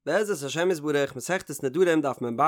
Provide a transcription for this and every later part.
בעזרת השם יתברך, מסכת נדרים דף מ"ב,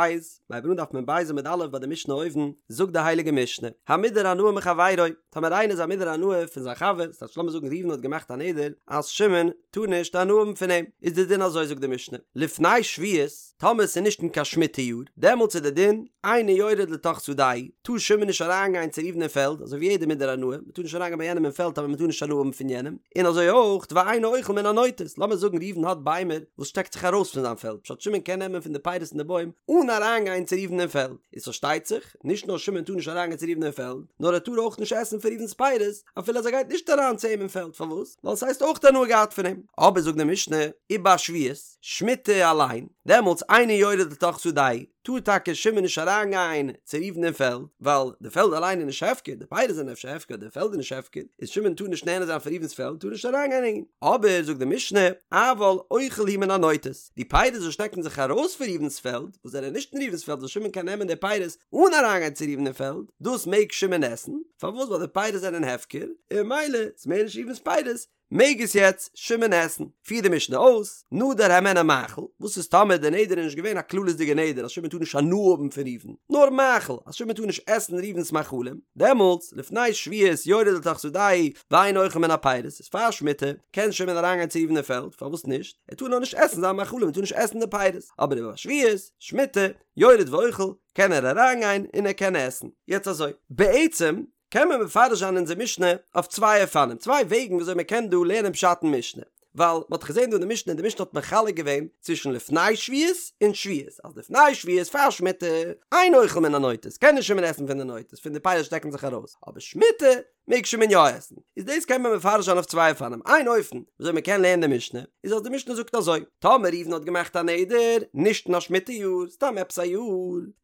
מ'הייבט אן דף מ"ב עמוד א' ביי די משנה אויבן, זאגט די הייליגע משנה, המודר הנאה מחבירו, טאמער איינער איז א מודר הנאה פון זיין חבר, ס'טייטש לאמיר זאגן ראובן האט געמאכט א נדר אז שמעון טאר נישט הנאה האבן פון אים, איז די דין אזוי זאגט די משנה, לפני שביעית, טאמער ס'איז נישט אין קיין שמיטה יאר, דעמאלטס איז די דין, אינו יורד לתוך שדהו, טאר שמעון נישט אריינגיין צו ראובן אין פעלד, אזוי ווי יעדער מודר הנאה, מ'טאר נישט אריינגיין ביי יענעם אין פעלד טאמער מ'טאר נישט הנאה האבן פון יענעם, און אזוי אויך ואינו אוכל מן הנוטות, לאמיר זאגן ראובן האט ביימער וואס שטעקט זיך ארויס פון זיין פעלד, פשט שמעון קען נעמען פון די פירות אין די בוים אן אריינגיין צו ראובן אין פעלד, איז פארשטייט זיך, נישט נאר שמעון טאר נישט אריינגיין צו ראובן אין פעלד, נאר ער טאר אויך נישט עסן פון ראובן'ס פירות, אפילו אז ער גייט נישט אריין צו אים אין פעלד, פארוואס? ווייל ס'הייסט אויך הנאה געהאט פון אים. אבער זאגט די משנה, ובשביעית, שמיטה אליין, דעמאלטס אינו יורד לתוך שדהו, טאר טאקע שמעון נישט אריינגיין צו ראובן אין פעלד, ווייל די פעלד אליין איז נישט הפקר, די פירות זענען אפשר הפקר, די פעלד איז נישט הפקר, איז שמעון טאר נישט נהנה זיין פון ראובן'ס פעלד, טאר נישט אריינגיין אין. אבער זאגט די משנה, אבל אוכל הוא מן הנוטות, די פירות וואס שטעקן זיך ארויס פון ראובן'ס פעלד, וואס זענען נישט אין ראובן'ס פעלד וואס שמעון קען נעמען די פירות אן אריינגיין צו ראובן אין פעלד, דאס מעג שמעון עסן, פארוואס ווייל די פירות זענען הפקר, און ממילא איז מער נישט ראובן'ס פירות, מעג עס יעצט שמעון עסן. פירט די משנה אויס, נדר הימנו מאכל, וואס איז טאמער די נדר איז נישט געווען א כללית'דיגע נדר אז שמעון טאר נישט הנאה האבן פון ראובן, נאר מאכל, אז שמעון טאר נישט עסן ראובן'ס מאכלים, דעמאלטס, לפני שביעית יורד לתוך שדהו ואינו אוכל מן הפירות, איז פאר שמיטה, קען שמעון אריינגיין צו ראובן אין פעלד, פארוואס נישט? ער טאר נאר נישט עסן זיין מאכלים, ער טאר נישט עסן די פירות, אבער ובשביעית, שמיטה, יורד ואוכל, קען ער אריינגיין און ער קען עסן. יעצט אזוי, בעצם, קען מען מפרש זיין אונזער משנה אויף צוויי אופנים, צוויי וועגן וויאזוי מען קען דא לערנען פשט אין משנה. ווייל מען האט געזען דא אין די משנה, די משנה האט מחלק געווען צווישן לפני שביעית און שביעית, אז לפני שביעית פאר שמיטה, אין אוכל מן הנוטות, קען נישט שמעון עסן פון די נוטות, פון די פירות שטעקן זיך ארויס, אבער שמיטה מעג שמעון יא עסן. איז דאס קען מען מפרש זיין אויף צוויי אופנים, איין אופן וויאזוי מען קען לערנען די משנה, איז אז די משנה זאגט אזוי, טאמער ראובן האט געמאכט א נדר, נישט אין א שמיטה יאר, סתם עפעס א יאר,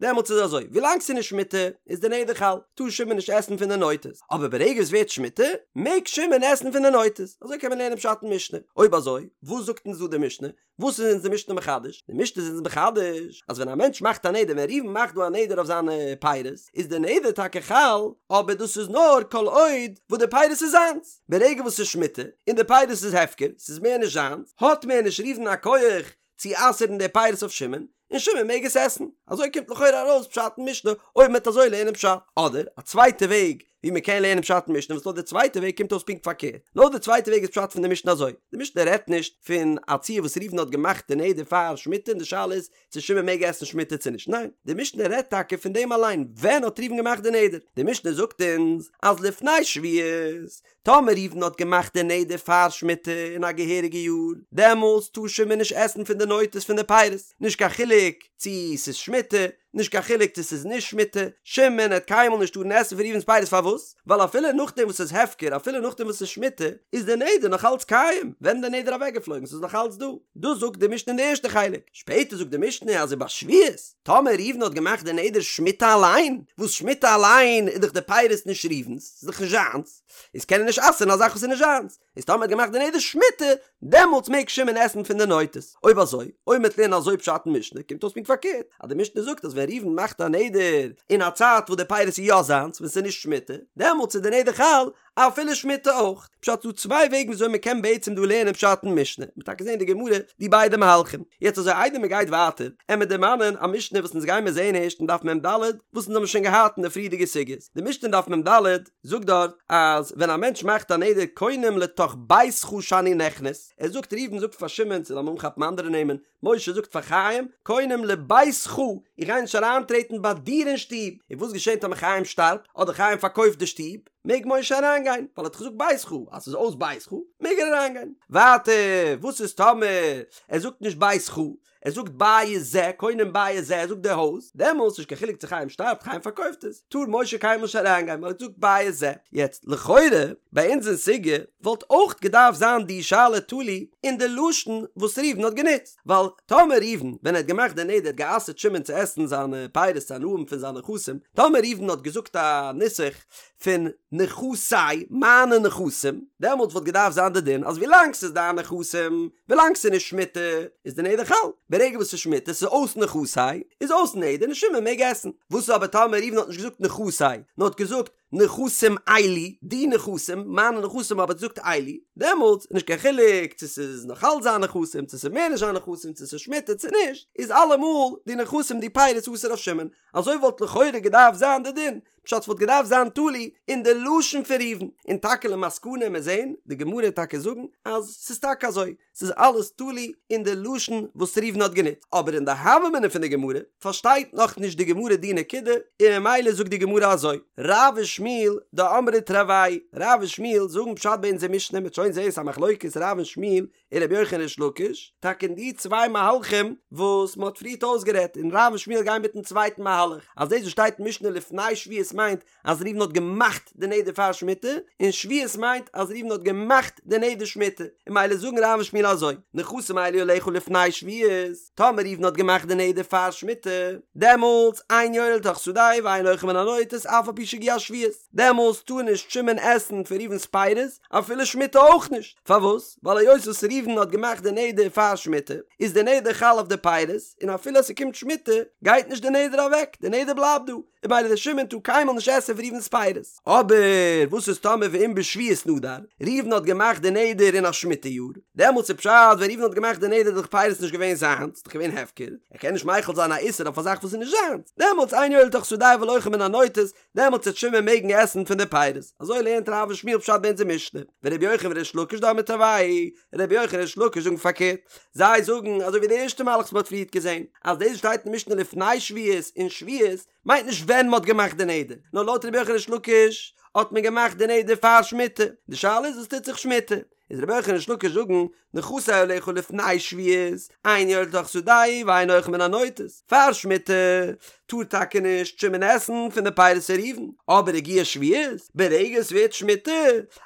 דעמאלטס איז אזוי, ווילאנג ס'איז נישט שמיטה, איז די נדר חל, טאר שמעון נישט עסן פון די נוטות, אבער ברגע עס ווערט שמיטה, מעג שמעון עסן פון די נוטות, אזוי קען מען לערנען פשט אין משנה. אויב אזוי, וואס זאגט אונז דא די משנה? וואס איז אונז די משנה מחדש? די משנה איז אונז מחדש, אז ווען א מענטש מאכט א נדר, ווען ראובן מאכט דא א נדר אויף זיינע פירות, איז די נדר טאקע חל, אבער דאס איז נאר כל עוד וואס די פירות איז זיינס. ברגע וואס ס'איז שמיטה און די פירות איז הפקר, ס'איז מער נישט זיינס, האט מער נישט ראובן א כח צו אסר'ן די פירות אויף שמעון, און שמעון מעג עס עסן. אזוי קומט לכאורה ארויס פשט אין משנה אויב מ'וועט אזוי לערנען פשט. אדער א צווייטע וועג ווי מ'קען לערנען פשט אין משנה וואס לויט די צווייטע וועג קומט אויס פונקט פארקערט. לויט די צווייטע וועג איז פשט פון די משנה אזוי, די משנה רעדט נישט פון א ציור וואס ראובן האט געמאכט די נדר פאר שמיטה און די שאלה איז צו שמעון מעג עסן שמיטה צו נישט, ניין, די משנה רעדט טאקע פון דעם אליין, ווען האט ראובן געמאכט די נדר? די משנה זאגט אונז אז לפני שביעית, טאמער ראובן האט געמאכט די נדר פאר שמיטה אין א געהעריגע יאר, דעמאלטס טאר שמעון נישט עסן פון די נוטות פון די פירות, נישט קיין חילוק צו ס'איז שמיטה, נישט קיין חילוק צו ס'איז נישט שמיטה, שמעון העט קיינמאל נישט טארן עסן פון ראובן'ס פירות פארוואס? ווייל אפילו נאכדעם וואס ס'איז הפקר, אפילו נאכדעם וואס ס'איז שמיטה, איז די נדר נאך אלץ קיים, ווען איז די נדר אוועקגעפלויגן? ס'איז נאך אלץ דא. דאס זאגט די משנה אין די ערשטע חלק. שפעטער זאגט די משנה אז ובשביעית, טאמער ראובן האט געמאכט די נדר שמיטה אליין, וואס שמיטה אליין איז דאך די פירות נישט ראובן'ס, ס'איז דאך נישט זיינס, איז קען ער נישט אסר'ן א זאך וואס איז נישט זיינס. איז טאמער האט געמאכט די נדר שמיטה, דעמאלטס מעג שמעון עסן פון די נוטות. אויב אזוי, אויב מ'וועט לערנען אזוי פשט אין משנה, קומט אויס פונקט פארקערט, אז די משנה זאגט אז ווען ראובן מאכט א נדר אין א צייט וואס די פירות איז יא זיינס, ווען ס'איז נישט שמיטה, דעמאלטס איז די נדר חל אפילו שמיטה אויך. פשט ס'דא צוויי וועגן וויאזוי מ'קען בעצם דא לערנען פשט אין משנה, מ'וועט טאקע זען אין די גמרא די ביידע מהלכים. יעצט אזוי איידער מ'גייט ווייטער, עמיר דערמאנען א משנה וואס אונז גיימיר זען הערשט אין דף מ"ד, וואס אונז האבן שוין געהאט אין די פריערדיגע סוגיות. די משנה אין דף מ"ד זאגט דארט אז ווען א מענטש מאכט א נדר קונם לתוך ביתך שאני נכנס, ער זאגט ראובן זאגט פאר שמעון צו לאמיר אנכאפן אנדערע נעמען, משה זאגט פאר חיים, קונם לביתך, איך גיי נישט אריינטרעטן ביי דיר אין שטוב, און וואס געשענט טאמער חיים שטארבט, אדער חיים פארקויפט די שטוב, מעג משה אריינגיין, ווייל ער האט געזאגט ביתך, אז ס'איז אויס ביתך, מעג ער אריינגיין. ווייטער, וואס איז טאמער ער זאגט נישט ביתך, ער זאגט בית זה, קונם בית זה, ער זאגט די הויז, דעמאלס נישט קיין חילוק צו חיים שטארבט, חיים פארקויפט עס, טאר משה קיינמאל נישט אריינגיין ווייל ער האט געזאגט בית זה. יעצט, לכאורה, ביי אונז אין סוגיא, וואלט אויך געדארפט זיין די שאלה תלוי אין די לשון וואס ראובן האט גענוצט, ווייל טאמער ראובן ווען ער האט געמאכט די נדר האט גע'אסר'ט שמעון צו עסן זיינע פירות צו הנאה האבן פון זיינע נכסים, טאמער ראובן האט געזאגט א נוסח פון נכסי, מיינע נכסים, דעמאלטס וואלט געדארפט זיין די דין אז ווילאנג ס'איז דיין נכסים, ווילאנג ס'איז נישט שמיטה, איז די נדר חל, ברגע וואס ס'איז שמיטה, ס'איז אויס נכסי, איז אויס נדר און שמעון מעג עסן. וואס איז אבער טאמער ראובן האט נישט געזאגט נכסי, נאר האט געזאגט. נכסים אלו, די נכסים, מיינע נכסים אבער ער האט געזאגט אלו, דעמאלטס איז נישט קיין חילוק צו ס'איז נאך אלץ זיין נכסים צו ס'איז מער נישט זיין נכסים צו ס'איז שמיטה צו נישט, איז אלעמאל די נכסים די פירות אסור אויף שמעון, אזוי וואלט לכאורה געדארפט זיין די דין, פשט ס'וואלט געדארפט זיין תלוי אין די לשון פון ראובן, און טאקע למסקנא מיר זעהן די גמרא טאקע זאגן אז ס'איז טאקע אזוי, ס'איז אלעס תלוי אין די לשון וואס ראובן האט גענוצט, אבער אין די הוה אמינא פון די גמרא פארשטייט נאך נישט די גמרא די נקודה, און ממילא זאגט די גמרא אזוי, רב ושמואל דאמרי תרוייהו, רב און שמואל זאגן פשט ביי אונזער משנה, מ'וועט שוין זעהן ס'איז א מחלוקת רב און שמואל און רבי יוחנן ריש לקיש, טאקע אין די צוויי מהלכים וואס מ'האט פריערט אויסגערעדט, און רב און שמואל גייען מיטן צווייטן מהלך, אז דאס וואס שטייט אין משנה לפני שביעית מיינט אז ראובן האט געמאכט די נדר פאר שמיטה, און שביעית מיינט אז ראובן האט געמאכט די נדר שמיטה, און ממילא זאגן רב און שמואל אזוי, נכסים אלו עליך לפני שביעית, טאמער ראובן האט געמאכט די נדר פאר שמיטה, דעמאלטס אין יורה לתוך שדהו ואין אוכל מן הנוטות אף על פי שהגיעה שביעית, דעמאלטס טאר נישט שמעון עסן פון ראובן'ס פירות, אפילו שמיטה אויך נישט, פארוואס? ווייל היות וואס ראובן האט געמאכט די נדר פאר שמיטה, איז די נדר חל אויף די פירות, און אפילו אז ס'קומט שמיטה, גייט נישט די נדר אוועק, די נדר בלייבט דא, און ממילא דער שמעון טאר קיינמאל נישט עסן פון ראובן'ס פירות. אבער וואס איז טאמער ואם בשביעית נדר, ראובן האט געמאכט די נדר אין א שמיטה יאר, דעמאלטס איז פשט ווען ראובן האט געמאכט די נדר איז דאך פירות נישט געווען זיינס, ס'איז דאך געווען הפקר, ער קען נישט מחיל זיין א איסור אויף א זאך וואס איז נישט זיינס, דעמאלטס אין יורה לתוך שדהו אבל אוכל מן הנוטות, דעמאלטס וועט שמעון מעגן עסן פון די פירות, אזוי לערנט רב און שמואל פשט ביי אונזער משנה, ורבי יוחנן וריש לקיש דאמרי תרוייהו, רבי יוחנן און ריש לקיש זאגן פארקערט, זיי זאגן אזוי ווי די ערשטע מהלך וואס מען האט פריערט געזען, אז דאס וואס שטייט אין משנה לפני שביעית און שביעית, מיינט נישט ווען מען האט געמאכט די נדר, נאר לויט רבי יוחנן ריש לקיש האט מען געמאכט די נדר פאר שמיטה, די שאלה איז וואס טוט זיך שמיטה, איז רבי יוחנן ריש לקיש זאגן נכסי עליך לפני שביעית, אין יורה לתוך שדהו ואין אוכל מן הנוטות, פאר שמיטה טאר טאקע נישט שמעון עסן פון די פירות פון ראובן, אבער הגיעה שביעית, ברגע עס ווערט שמיטה,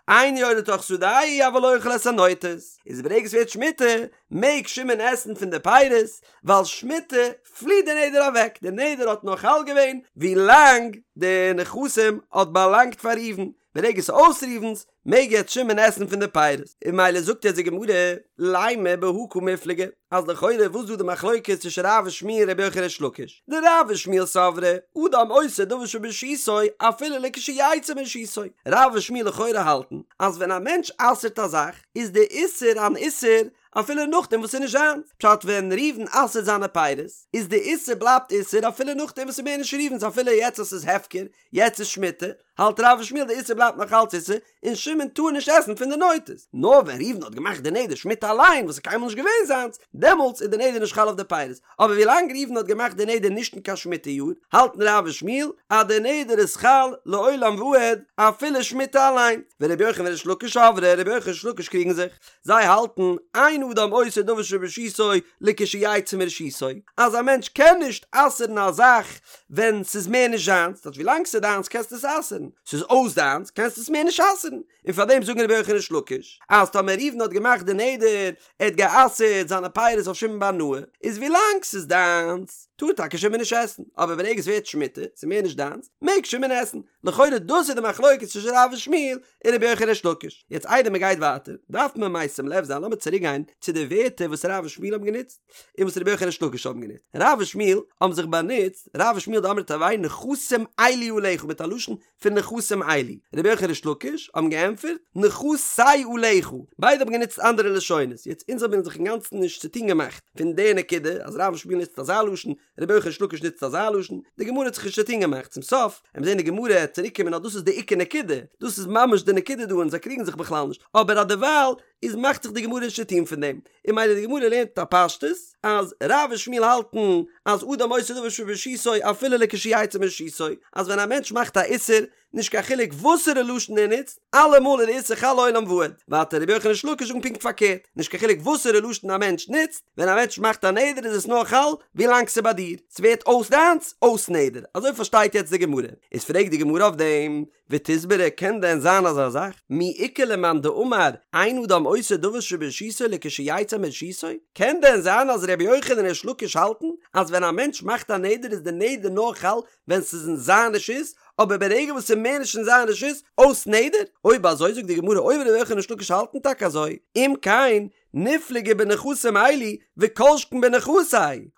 אין יורה לתוך שדהו אבל אוכל את הנוטות, איז ברגע עס ווערט שמיטה מעג שמעון עסן פון די פירות, ווייל שמיטה פליט די נדר אוועק, די נדר האט נאר חל געווען ווי לאנג די נכסים האט באלאנגט פאר ראובן, ברגע ס'איז אויס ראובן'ס, מעג יעצט שמעון עסן פון די פירות, און ממילא זאגט יעצט די גמרא, לימא בהא קמיפלגי, אז לכאורה וואס איז דא די מחלוקת צווישן רב ושמואל רבי יוחנן ריש לקיש, דרב ושמואל סברי, אדם אוסר דבר שברשותו אפילו לכשיצא מרשותו, רב ושמואל לכאורה האלטן אז ווען א מענטש אסר'ט א זאך איז די איסור אן איסור אפילו נאכדעם וואס ס'איז נישט זיינס, פשט ווען ראובן אסר'ט זיינע פירות איז די איסור בלייבט איסור אפילו נאכדעם וואס ס'איז מער נישט ראובן'ס אפילו יעצט אז ס'איז הפקר, יעצט איז שמיטה, האלט רב ושמואל די איסור בלייבט נאך אלץ איסור, און שמעון טאר נישט עסן פון די נוטות. נאר ווען ראובן האט געמאכט די נדר שמיטה אליין וואס איז קיינמאל נישט געווען זיינס, דעמאלטס איז די נדר נישט חל אויף די פירות. אבער ווילאנג ראובן האט געמאכט די נדר נישט אין קיין שמיטה יאר, האלטן רב ושמואל אז די נדר איז חל לעולם ועד אפילו שמיטה אליין. ורבי יוחנן וריש לקיש סברי, רבי יוחנן וריש לקיש קריגן זיך. זיי האלטן, אין אדם אוסר דבר שברשותו לכשיצא מרשותו, אז א מענטש קען נישט אסר'ן א זאך ווען ס'איז מער נישט זיינס, דאס ווילאנג ס'איז דיינס קענסטו עס אסר'ן, ס'איז אויס דיינס קענסטו עס מער נישט אסר'ן, און פאר דעם זאגן רבי יוחנן ריש לקיש, אז טאמער ראובן האט געמאכט די נדר, ער האט גע'אסר'ט זיינע פירות אויף שמעון בהנאה, איז ווילאנג ס'איז דיינס, טאר טאקע שמעון נישט עסן, אבער ברגע עס ווערט שמיטה, ס'איז מער נישט דיינס, מעג שמעון עסן. לכאורה דאס איז די מחלוקת צווישן רב און שמואל און רבי יוחנן ריש לקיש. יעצט איידער מען גייט ווייטער, דארף מען משים לב זיין, לאמיר צוריק גיין צו די ווערטער וואס רב און שמואל האבן גענוצט, און וואס רבי יוחנן ריש לקיש האבן גענוצט. רב און שמואל האבן זיך באנוצט, רב ושמואל דאמרי תרוייהו נכסים אלו עליך מיט א לשון פון נכסים אלו. רבי יוחנן ריש לקיש האבן געענטפערט נכסי עליך. ביידע האבן גענוצט אנדערע לשונות. יעצט אונז האבן זיך אינגאנצן נישט צוטון געמאכט פון די נקודה אז רב און שמואל נוצט אזא לשון, רבי יוחנן ריש לקיש נוצט אזא לשון, די גמרא האט זיך נישט צוטון געמאכט, צום סוף וועט מען זען די גמרא וועט צוריק קומען אז דאס איז די עיקר נקודה, דאס איז ממש די נקודה דא און זיי קריגן זיך בכלל נישט, אבער אז דערווייל איז מאכט זיך די גמרא נישט צוטון פון דעם, און ממילא די גמרא לערנט א פשטות אז רב און שמואל האלטן אז אדם אוסר דבר שברשותו אפילו לכשיצא מרשותו, אז ווען א מענטש מאכט א איסור נישט קיין חילוק וואסערע לשון ער נוצט, אלעמאל איז די איסור חל לעולם ועד. ווייטער רבי יוחנן ריש לקיש זאגן פונקט פארקערט, נישט קיין חילוק וואסערע לשון א מענטש נוצט, ווען א מענטש מאכט א נדר איז עס נאר חל ווי לאנג ס'איז ביי דיר, ס'ווערט אויס דיינס, אויס נדר. אזוי פארשטייט יעצט די גמרא. איז פרעגט די גמרא אויף דעם, ותסברא קען דען זיין אזא זאך? מי איכא למאן דאמר אין אדם אוסר דבר שברשותו לכשיצא מרשותו? קען דען זיין אז רבי יוחנן און ריש לקיש האלטן אז ווען א מענטש מאכט א נדר איז די נדר נאר חל ווען ס'איז אין זיין רשות, אבער ברגע וואס ס'איז מער נישט אין זיין רשות, אויס נדר? אויב אזוי זאגט די גמרא אויב ר' יוחנן ריש לקיש האלטן טאקע אזוי, אם כן, ניפלגו בנכסים אלו וכל שכן בנכסי.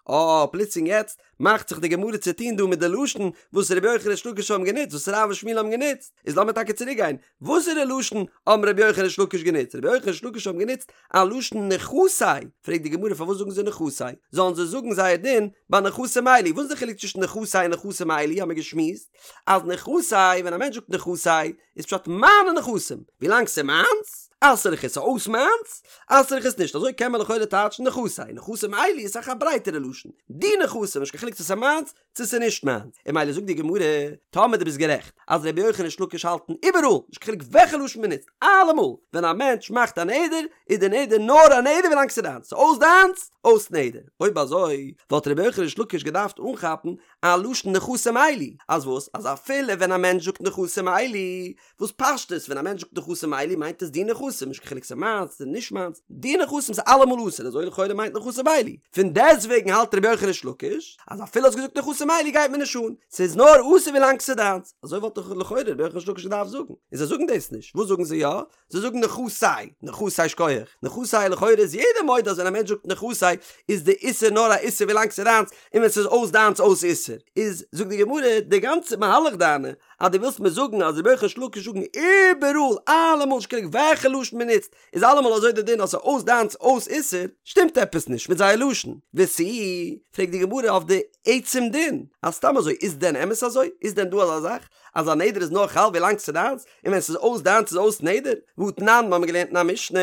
אה, פלוצלינג יעצט מאכט זיך די גמרא צו טון דא מיט די לשון וואס רבי יוחנן ריש לקיש האבן גענוצט, וואס רב און שמואל האבן גענוצט, איז לאמיר טאקע צוריק גיין, וואסערע לשון האבן רבי יוחנן ריש לקיש גענוצט? רבי יוחנן ריש לקיש האבן גענוצט א לשון נכסי, פרעגט די גמרא פארוואס זאגן זיי נכסי? זאלן זיי זאגן זייער דין ביי נכסים אלו, וואס איז די חילוק צווישן נכסי און נכסים אלו האבן מיר געשמועסט אז נכסי ווען א מענטש זאגט נכסי איז פשט מיינע נכסים, ווילאנג ס'איז מיינס אסר איך עס, אויס מיינס אסר איך עס נישט, אזוי קען מען לכאורה טייטשן נכסי, נכסים אלו איז אסאך א ברייטערע לשון, די נכסים נישט קיין חילוק צו ס'איז מיינס צו ס'איז נישט מיינס, און ממילא זאגט די גמרא, טאמער דו ביסט גערעכט אז רבי יוחנן ריש לקיש האלטן איבעראל, נישט קיין חילוק וועלכע לשון מ'נוצט, אלעמאל ווען א מענטש מאכט א נדר, איז די נדר נאר א נדר ווילאנג ס'איז דיינס, ס'איז אויס דיינס, אויס נדר. אויב אזוי, וואלט רבי יוחנן ריש לקיש געדארפט אנכאפן א לשון נכסים אלו, אז וואס? אז אפילו ווען א מענטש זאגט נכסים אלו, וואס פשטות ווען א מענטש זאגט נכסים אלו מיינט עס די נכסים, נישט קיין חילוק ס'איז מיינס צו נישט מיינס, די נכסים איז אלעמאל אסור, אזוי לכאורה מיינט נכסים אלו. פון דעסטוועגן האלט רבי יוחנן ריש לקיש אז אפילו האסט געזאגט נכסים אלו גייט מיר נישט אן, ס'איז נאר אסור ווילאנג ס'איז דיינס. אזוי וואלט דאך לכאורה רבי יוחנן ריש לקיש געדארפט זאגן, און זיי זאגן דאס נישט, וואס זאגן זיי יא? זיי זאגן נכסי, נכסי שכוח, נכסי לכאורה איז יעדער מודה אז ווען א מענטש זאגט נכסי איז די איסור נאר א איסור ווילאנג ס'איז דיינס, און ווען ס'איז אויס דיינס אויס איסור. איז זאגט די גמרא די גאנצע מהלך דיינע אז דו ווילסט מיר זאגן אז רבי יוחנן ריש לקיש זאגן איבעראל אלעמאל נישט קיין חילוק וועלכע לשון מען נוצט איז אלעמאל אזוי די דין אז ס'איז אויס דיינס אויס איסור, שטימט עפעס נישט מיט זייער לשון. ותו, פרעגט די גמרא אויף די עצם דין אז סתם אזוי איז דען אמת אזוי? איז דען דא אזא זאך אז א נדר איז נאר חל ווילאנג ס'איז דיינס און ווען ס'איז אויס דיינס איז אויס נדר? והתנן, מ'האמיר געלערנט אין א משנה,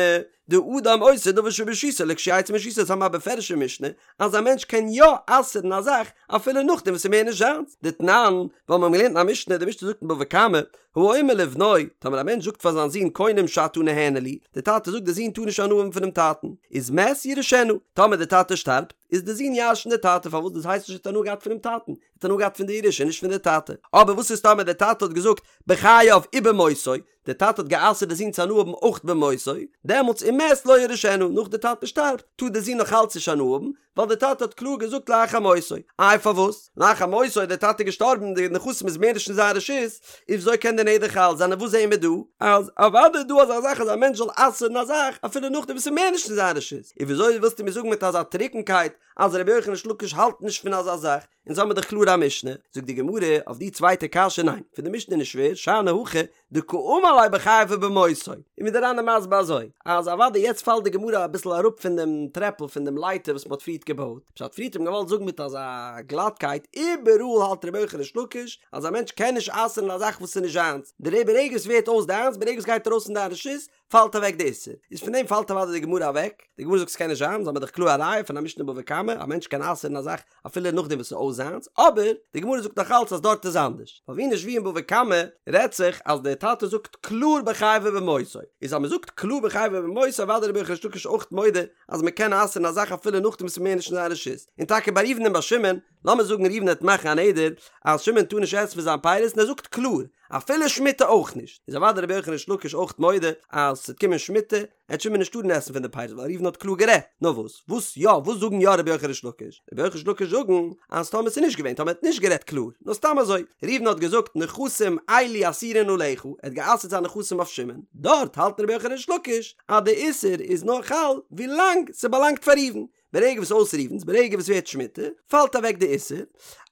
דאדם אוסר דבר שברשותו לכשיצא מרשותו, אונז האבן א בפירוש'ע משנה אז א מענטש קען יא אסר'ן א זאך אפילו נאכדעם וואס ס'איז מער נישט זיינס, דתנן, ווייל מ'האמיר געלערנט אין א משנה, די משנה זאגט אין בבא קמא, האומר לבנו, טאמער א מענטש זאגט פאר זיין זון קונם שאתה נהנה לי, די טאטע זאגט די זון טאר נישט הנאה האבן פונעם טאטן, איז מת יירשנו, טאמער די טאטע שטארבט, איז די זון ירש'ן די טאטע, פארוואס דאס הייסט נישט ער האט הנאה געהאט פונעם טאטן, ער האט הנאה געהאט פון די ירושה נישט פון די טאטע, אבער וואס איז טאמער די טאטע האט געזאגט בחייו ובמותו, די טאטע האט גע'אסר'ט די זון צו הנאה האבן אויך במותו, דעמאלטס ומת לא יירשנו, נאך די טאטע שטארבט, טאר די זון נאך אלץ נישט הנאה האבן, ווייל די טאטע האט קלאר געזאגט לאחר מותו. איי פארוואס? לאחר מותו איז די טאטע געשטארבן, די נכסים איז מער נישט אין זיין רשות, איז וויאזוי קען די נדר חל זיין און וואס זעהן מיר דא? אז אוודאי איז דא אזא זאך אז א מענטש זאל אסר'ן א זאך אפילו נאכדעם וואס ס'איז מער נישט אין זיין רשות, איז וויאזוי ווילסטו מיר זאגן מיט אזא טרוקנקייט אז רבי יוחנן ריש לקיש האלט נישט פון אזא זאך? אונז האמיר דאך קלאר א משנה, זאגט די גמרא אויף די צווייטע קשיא ניין, פון די משנה איז נישט שווער, שאני הכא דקאמר ליה בחייו ובמותו, און ווי דער ר"ן איז מסביר אזוי, אז אוודאי יעצט פאלט די גמרא אביסל אראפ פון דעם טרעפל פון דעם לייטער וואס מען האט פריערט געבויט, פשט פריערט האט מען געוואלט זאגן מיט אזא גלאטקייט, איבעראל האלט רבי יוחנן ריש לקיש אז א מענטש קען נישט אסר'ן א זאך וואס איז נישט זיינס, דער ברגע עס ווערט אויס דיינס, ברגע עס גייט ארויס פון דיין רשות, פאלט אוועק די איסור, איז פון דעם פאלט אוודאי די גמרא אוועק, די גמרא זאגט ס'קען נישט זיין, אונז האמיר דאך קלאר א ראיה פון א משנה בבא קמא, א מענטש קען אסר'ן א זאך אפילו נאכדעם וואס ס'איז אויס זיינס, אבער די גמרא זאגט נאך אלץ אז דארט איז אנדערש, ווייל ווי נישט ווי אין בבא קמא רעדט זיך אז דער טאטע זאגט קלאר בחייו ובמותו, איז אז מ'זאגט קלאר בחייו ובמותו אוודאי רבי יוחנן ריש לקיש אויך מודה אז מ'קען אסר'ן א זאך אפילו נאכדעם וואס ס'איז מער נישט אין זיין רשות, און טאקע ביי ראובן און ביי שמעון, לאמיר זאגן ראובן וועט מאכן א נדר אז שמעון טאר נישט עסן פון זיין פירות און ער זאגט קלאר אפילו שמיטה אויך נישט, איז אוודאי רבי יוחנן ריש לקיש אויך מודה אז ס'וועט קומען שמיטה עט שמעון נישט טארן עסן פון די פירות ווייל ראובן האט קלאר גערעדט, נאר וואס וואס יא וואס זאגן יא רבי יוחנן ריש לקיש? רבי יוחנן ריש לקיש זאגן אז טאמער ס'איז נישט געווען טאמער ער האט נישט גערעדט קלאר נאר סתם אזוי ראובן האט געזאגט נכסים אלו אסורין עליך ער האט גע'אסר'ט זיין נכסים אויף שמעון דארט האלט רבי יוחנן ריש לקיש אז די איסור איז נאר חל ווילאנג ס'באלאנגט פאר ראובן ברגע וואס אויס ראובן'ס, ברגע וואס ווערט שמיטה, פאלט אוועק די איסור,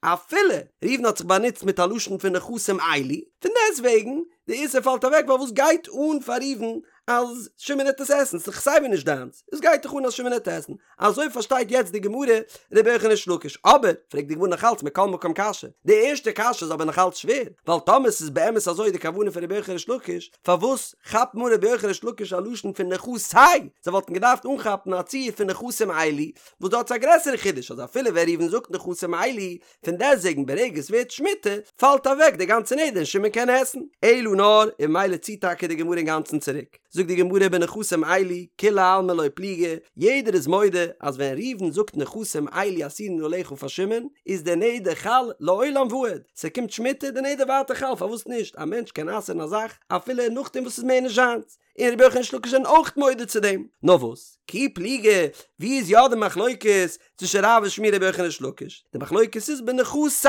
אפילו ראובן האט זיך באנוצט מיט א לשון פון נכסים אלו, פון דעסטוועגן, די איסור פאלט אוועק ווייל וואס גייט אן פאר ראובן אז שמעון העט עס עסן, ס'איז דאך סייווי נישט דיינס, עס גייט דאך אן אז שמעון העט עסן, אזוי פארשטייט יעצט די גמרא רבי יוחנן ריש לקיש, אבער, פרעגט די גמרא נאכאלץ מכל מקום קשיא, די ערשטע קשיא איז אבער נאכאלץ שווער, ווייל טאמער ס'איז באמת אזוי די כוונה פון רבי יוחנן ריש לקיש, פארוואס כאפט אן רבי יוחנן ריש לקיש א לשון פון נכסי? זיי וואלטן געדארפט אנכאפן א ציור פון נכסים אלו, וואס דארט איז א גרעסערע חידוש אז אפילו ווען ראובן זאגט נכסים אלו, פון דעסטוועגן ברגע עס ווערט שמיטה, פאלט אוועק די גאנצע נדר און שמעון קען עסן. אלא נאר, און ממילא ציט טאקע די גמרא אינגאנצן צוריק. זאגט די גמרא בנכסים אלו, כולי עלמא לא פליגי, יעדער איז מודה אז ווען ראובן זאגט נכסים אלו אסורין עליך פאר שמעון, איז דער נדר חל לעולם ועד, ס'קומט שמיטה, די נדר ווייטער חל, פארוואס נישט? א מענטש קען אסר'ן א זאך אפילו נאכדעם וואס ס'איז מער נישט זיינס, און רבי יוחנן ריש לקיש זענען אויך מודה צו דעם. נאר וואס? כי פליגי, ווי איז יא די מחלוקת צווישן רב און שמואל רבי יוחנן ריש לקיש? די מחלוקת איז בנכסי,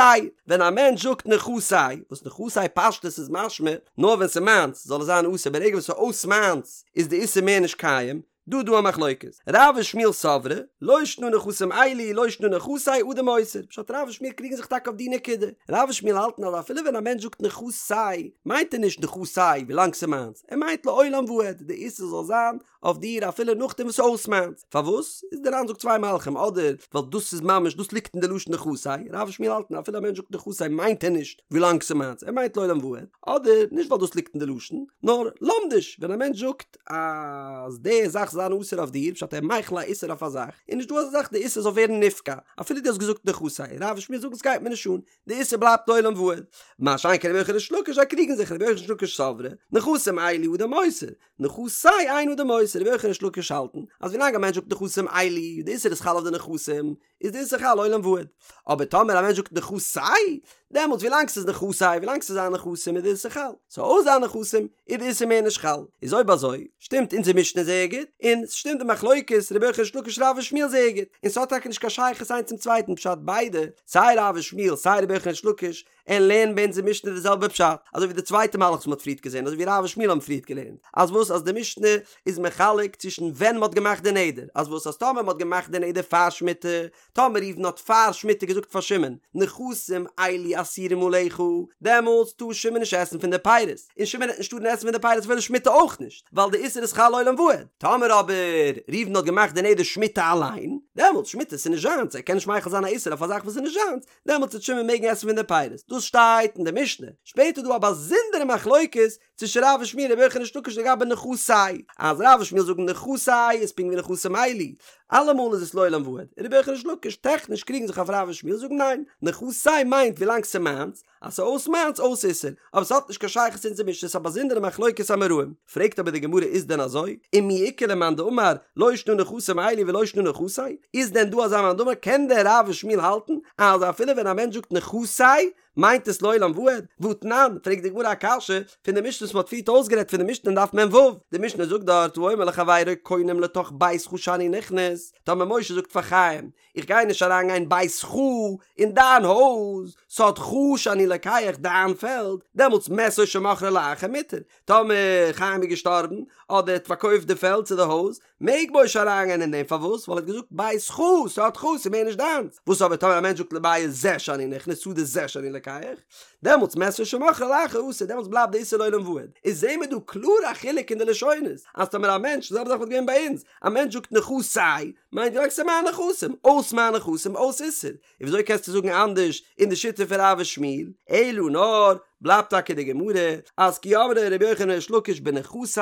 ווען א מענטש זאגט נכסי, וואס נכסי פשטות איז משמע, נאר ווען ס'איז מיינס זאל עס זיין אסור, ברגע וואס ס'איז אויס מיינס איז די איסור מער נישט קיים, דא דא א מחלוקת, רב ושמואל סברי, לא שנא נכסים אלו לא שנא נכסי אדם אוסר, פשט רב ושמואל קריגן זיך טאקע אויף די נקודה, רב ושמואל האלטן אז אפילו ווען א מענטש זאגט נכסי מיינט ער נישט נכסי ווילאנג ס'איז מיינס, ער מיינט לעולם ועד, די איסור זאל זיין אויף דיר אפילו נאכדעם וואס ס'איז אויס מיינס. פארוואס? איז דער ר"ן זאגט צוויי מהלכים, אדער ווייל דאס איז ממש דאס ליגט אין די לשון נכסי, רב ושמואל האלטן אפילו א מענטש זאגט נכסי מיינט ער נישט ווילאנג ס'איז מיינס, ער מיינט לעולם ועד, אדער נישט ווייל דאס ליגט אין די לשון, נאר לומדיש, ווען א מענטש זאגט אז די זאך זאל זיין אסור אויף דיר, פשט ער מחיל א איסור אויף א זאך, איז נישט דא אזא זאך די איסור זאל ווערן נפקע, אפילו דו האסט געזאגט נכסי, רב ושמואל זאגן ס'גייט מיר נישט אן, די איסור בלייבט לעולם ועד. מה שאין כן רבי יוחנן וריש לקיש זיי קריגן זיך רבי יוחנן וריש לקיש סברי, נכסים אלו אדם אוסר, נכסי אין אדם אוסר, רבי יוחנן וריש לקיש האלטן אז ווילאנג א מענטש זאגט נכסים אלו, די איסור איז חל אויף די נכסים, איז די איסור חל לעולם ועד. אבער טאמער א מענטש זאגט נכסי, דעמאלטס ווילאנג ס'איז נכסי, ווילאנג ס'איז זיין נכסים איז די איסור חל, ס'איז אויס זיין נכסים, איז די איסור מער נישט חל. איז אויב אזוי, שטימט אונזער משנה זייער גוט, און ס'שטימט די מחלוקת רבי יוחנן וריש לקיש רב ושמואל זייער גוט, און ס'האט טאקע נישט קיין שייכות איינס צום צווייטן פשט ביידע, סיי רב ושמואל סיי רבי יוחנן וריש לקיש, און לערנען ביי אונזער משנה די זעלבע פשט, אזוי ווי די צווייטע מהלך וואס מ'האט פריערט געזען, אזוי ווי רב ושמואל האבן פריערט געלערנט, אז וואס אז די משנה איז מחלק צווישן ווען מ'האט געמאכט די נדר, אז וואס אז טאמער מ'האט געמאכט די נדר פאר שמיטה, טאמער ראובן האט פאר שמיטה געזאגט פאר שמעון, נכסים אלו אסורים עליך, דעמאלטס טאר שמעון נישט עסן פון די פירות, און שמעון העט נישט טארן עסן פון די פירות אפילו שמיטה אויך נישט, ווייל די איסור איז חל לעולם ועד. טאמער אבער ראובן האט געמאכט די נדר שמיטה אליין, דעמאלטס שמיטה איז נישט זיינס, ער קען נישט מחיל זיין א איסור אויף א זאך וואס איז נישט זיינס, דעמאלטס וועט שמעון מעגן עסן פון די פירות, דאס שטייט אין די משנה, שפעטער איז דא א באזונדערע מחלוקת צווישן רב ושמואל רבי יוחנן וריש לקיש לגבי נכסי, אז רב ושמואל זאגן נכסי איז פונקט ווי נכסים אלו, אלעמאל איז עס לעולם ועד, און רבי יוחנן וריש לקיש טעכניש קריגן זיך אויף רב ושמואל זאגן ניין, נכסי מיינט ווילאנג ס'איז מיינס, אז ס'איז אויס מיינס אויס איסור, אבער ס'האט נישט קיין שייכות צו אונזער משנה ס'איז א באזונדערע מחלוקת אמוראים. פרעגט אבער די גמרא איז דען אזוי? ומי איכא למאן דאמר לא שנא נכסים אלו ולא שנא נכסי? איז דען דא אזא מאן דאמר? קען דען רב ושמואל האלטן אז אפילו ווען א מענטש זאגט נכסי מיינט עס לעולם ועד? והתנן, פרעגט די גמרא א קשיא פון די משנה וואס מ'האט פריערט אויסגערעדט פון די משנה אין דף מ"ו, די משנה זאגט דארט האומר לחבירו קונם לתוך ביתך שאני נכנס, טאמער משה זאגט פאר חיים איך גיי נישט אריין גיין ביתך אין דיין הויז, שדך שאני לוקח דיין פעלד, דעמאלטס מת או שמכרו לאחר מותר, טאמער חיים איז געשטארבן, אדער ער האט פארקויפט די פעלד צו די הויז, מעג משה אריין גיין אין דעם, פארוואס? ווייל ער האט געזאגט ביתך, שדך, ס'איז מער נישט דיינס, וואס אבער טאמער א מענטש זאגט לבית זה שאני נכנס, שדה זה שאני לוקח, דעמאלטס מת או שמכרו לאחר אסור, דעמאלטס בלייבט די איסור לעולם ועד, איז זעהן מיר דא קלאר א חילוק אין די לשונות, אז טאמער א מענטש, די זעלבע זאך וואלט געווען ביי אונז, א מענטש זאגט נכסי, מיינט ווילאנג ס'איז מיין נכסים, אויס מיין נכסים, אויס איסור. און וויאזוי קענסטו זאגן אנדערש אין די שיטה פון רב ושמואל? אלא נאר, בלייבט טאקע די גמרא, אז כי אמרי רבי יוחנן וריש לקיש בנכסי,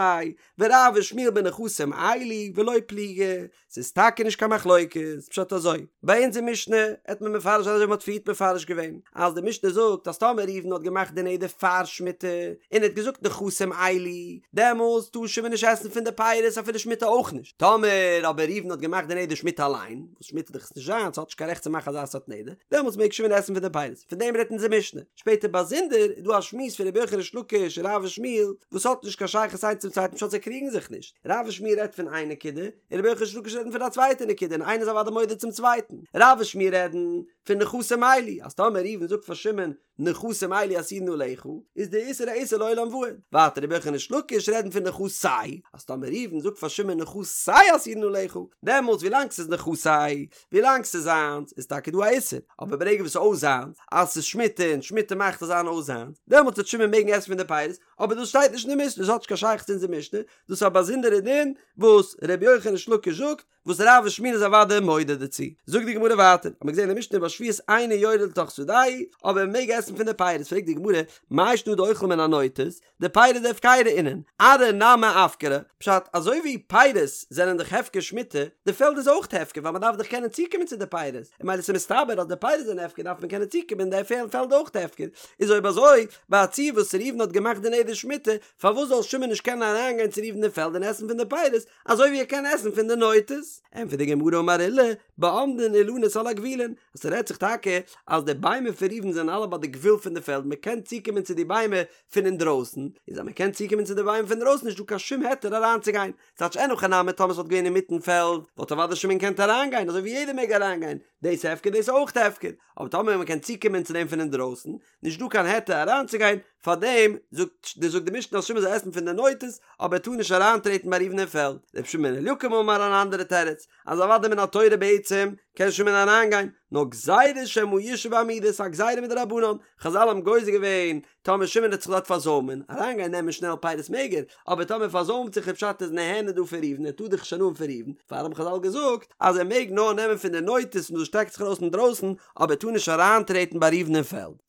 ורב ושמואל בנכסים אלו, ולא פליגי. ס'איז טאקע נישט קיין מחלוקת, פשט אזוי, ביי אונז אין משנה העט מען מפרש זיין אזוי ווי מ'האט פריערט מפרש געווען, אז די משנה זאגט אז טאמער ראובן האט געמאכט די נדר פאר שמיטה, און ער האט געזאגט נכסים אלו, דעמאלס טאר שמעון נישט עסן פון די פירות אפילו שמיטה אויך נישט, טאמער אבער ראובן האט געמאכט די נדר שמיטה אליין, וואס שמיטה איז דאך נישט זיינס, האט נישט קיין רעכט צו מאכן אזא סארט נדר, דעמאלס מעג שמעון עסן פון די פירות, פון דעם רעדט אונזער משנה. שפעטער באזונדער איז דא א שמועס פון רבי יוחנן ריש לקיש און רב ושמואל וואס האט נישט קיין שייכות איינס צום צווייטן פשט זיי קריגן זיך נישט, רב ושמואל רעדט פון איין נקודה און רבי יוחנן ריש לקיש רעדן פון א צווייטע נקודה און איינער איז אוודאי מודה צום צווייטן. רב ושמואל רעדן פון נכסים אלו, אז טאמער ראובן זאגט פאר שמעון נכסים אלו אסורין עליך, איז די איסור א איסור לעולם ועד. ווייטער רבי יוחנן ריש לקיש רעדן פון נכסי, אז טאמער ראובן זאגט פאר שמעון נכסי אסורין עליך, דעמאלטס ווילאנג ס'איז נכסי, ווילאנג ס'איז זיינס, איז טאקע דא א איסור, אבער ברגע וואס ס'איז אויס זיינס, אז ס'איז שמיטה און שמיטה מאכט עס זיין אויס זיינס, דעמאלטס וועט שמעון מעגן עסן פון די פירות, אבער דאס שטייט נישט אין די משנה, דאס האט נישט קיין שייכות צו אונזער משנה, דאס איז א באזונדערע דין וואס רבי יוחנן ריש לקיש זאגט, וואס רב ושמואל איז אוודאי מודה דערצו. זאגט די גמרא ווייטער, האט מען געזען אין די משנה ובשביעית אינו יורד לתוך שדהו, אבער מען מעג עסן פון די פירות, פרעגט די גמרא, מאי שנא דאוכל מן הנוטות, דפירי דהפקירא אינון, ארעא נמי אפקרא, פשט, אזוי ווי פירות זענען דאך הפקר שמיטה, די פעלד איז אויך הפקר ווייל מען דארף דאך קענען צוקומען צו די פירות, און ממילא ס'איז מסתבר אז די פירות זענען הפקר דארף מען קענען צוקומען די פעלד אויך הפקר, איז אויב אזוי, ביי א ציור וואס ראובן האט געמאכט די נדר שמיטה, פארוואס זאל שמעון נישט קענען אריינגיין צו ראובן אין פעלד און עסן פון די פירות, אזוי ווי ער קען עסן פון די נוטות? ענטפערט די גמרא אמר עולא, בעומדין אילנות על הגבולין, אז ס'רעדט זיך טאקע אז די ביימער פון ראובן זענען אלע ביי די גבול פון די פעלד, מ'קען צוקומען צו די ביימער פון אינדרויסן, איז אז מ'קען צוקומען צו די ביימער פון דרויסן נישט דא קיין שום היתר אריינצוגיין, ס'טייטש אין הכי נמי טאמער ס'וואלט געווען אינמיטן פעלד וואלט אוודאי שמעון געקענט אריינגיין אזוי ווי יעדער מעג אריינגיין, דאס הפקר דאס אויך הפקר, אבער טאמער מ'קען צוקומען צו דעם פון אינדרויסן, נישט דא קיין היתר אריינצוגיין, פארדעם זאגט. זאגט די משנה אז שמעון זאל עסן פון די נוטות, אבער ער טאר נישט אריינטרעטן ביי ראובן אין פעלד. רבי שמעון בן אליקים אמר אן אנדערע תירוץ, אז אוודאי מן התורה בעצם קען שמעון אריינגיין, נאר גזירה שמא ישהא בעמידה, ס'איז א גזירה מדרבנן, חזל האבן גוזר געווען, טאמער שמעון וועט זיך דארט פארזוימען, אריינגיין נעמען שנעל פירות מעג ער, אבער טאמער פארזוימט זיך איז פשט איז נהנה דא פון ראובן, ער טאר דאך נישט הנאה האבן פון ראובן, פאר האבן חזל געזאגט אז ער מעג נאר נעמען פון די נוטות וואס שטעקט זיך ארויס אינדרויסן, אבער ער טאר נישט אריינטרעטן ביי ראובן אין פעלד.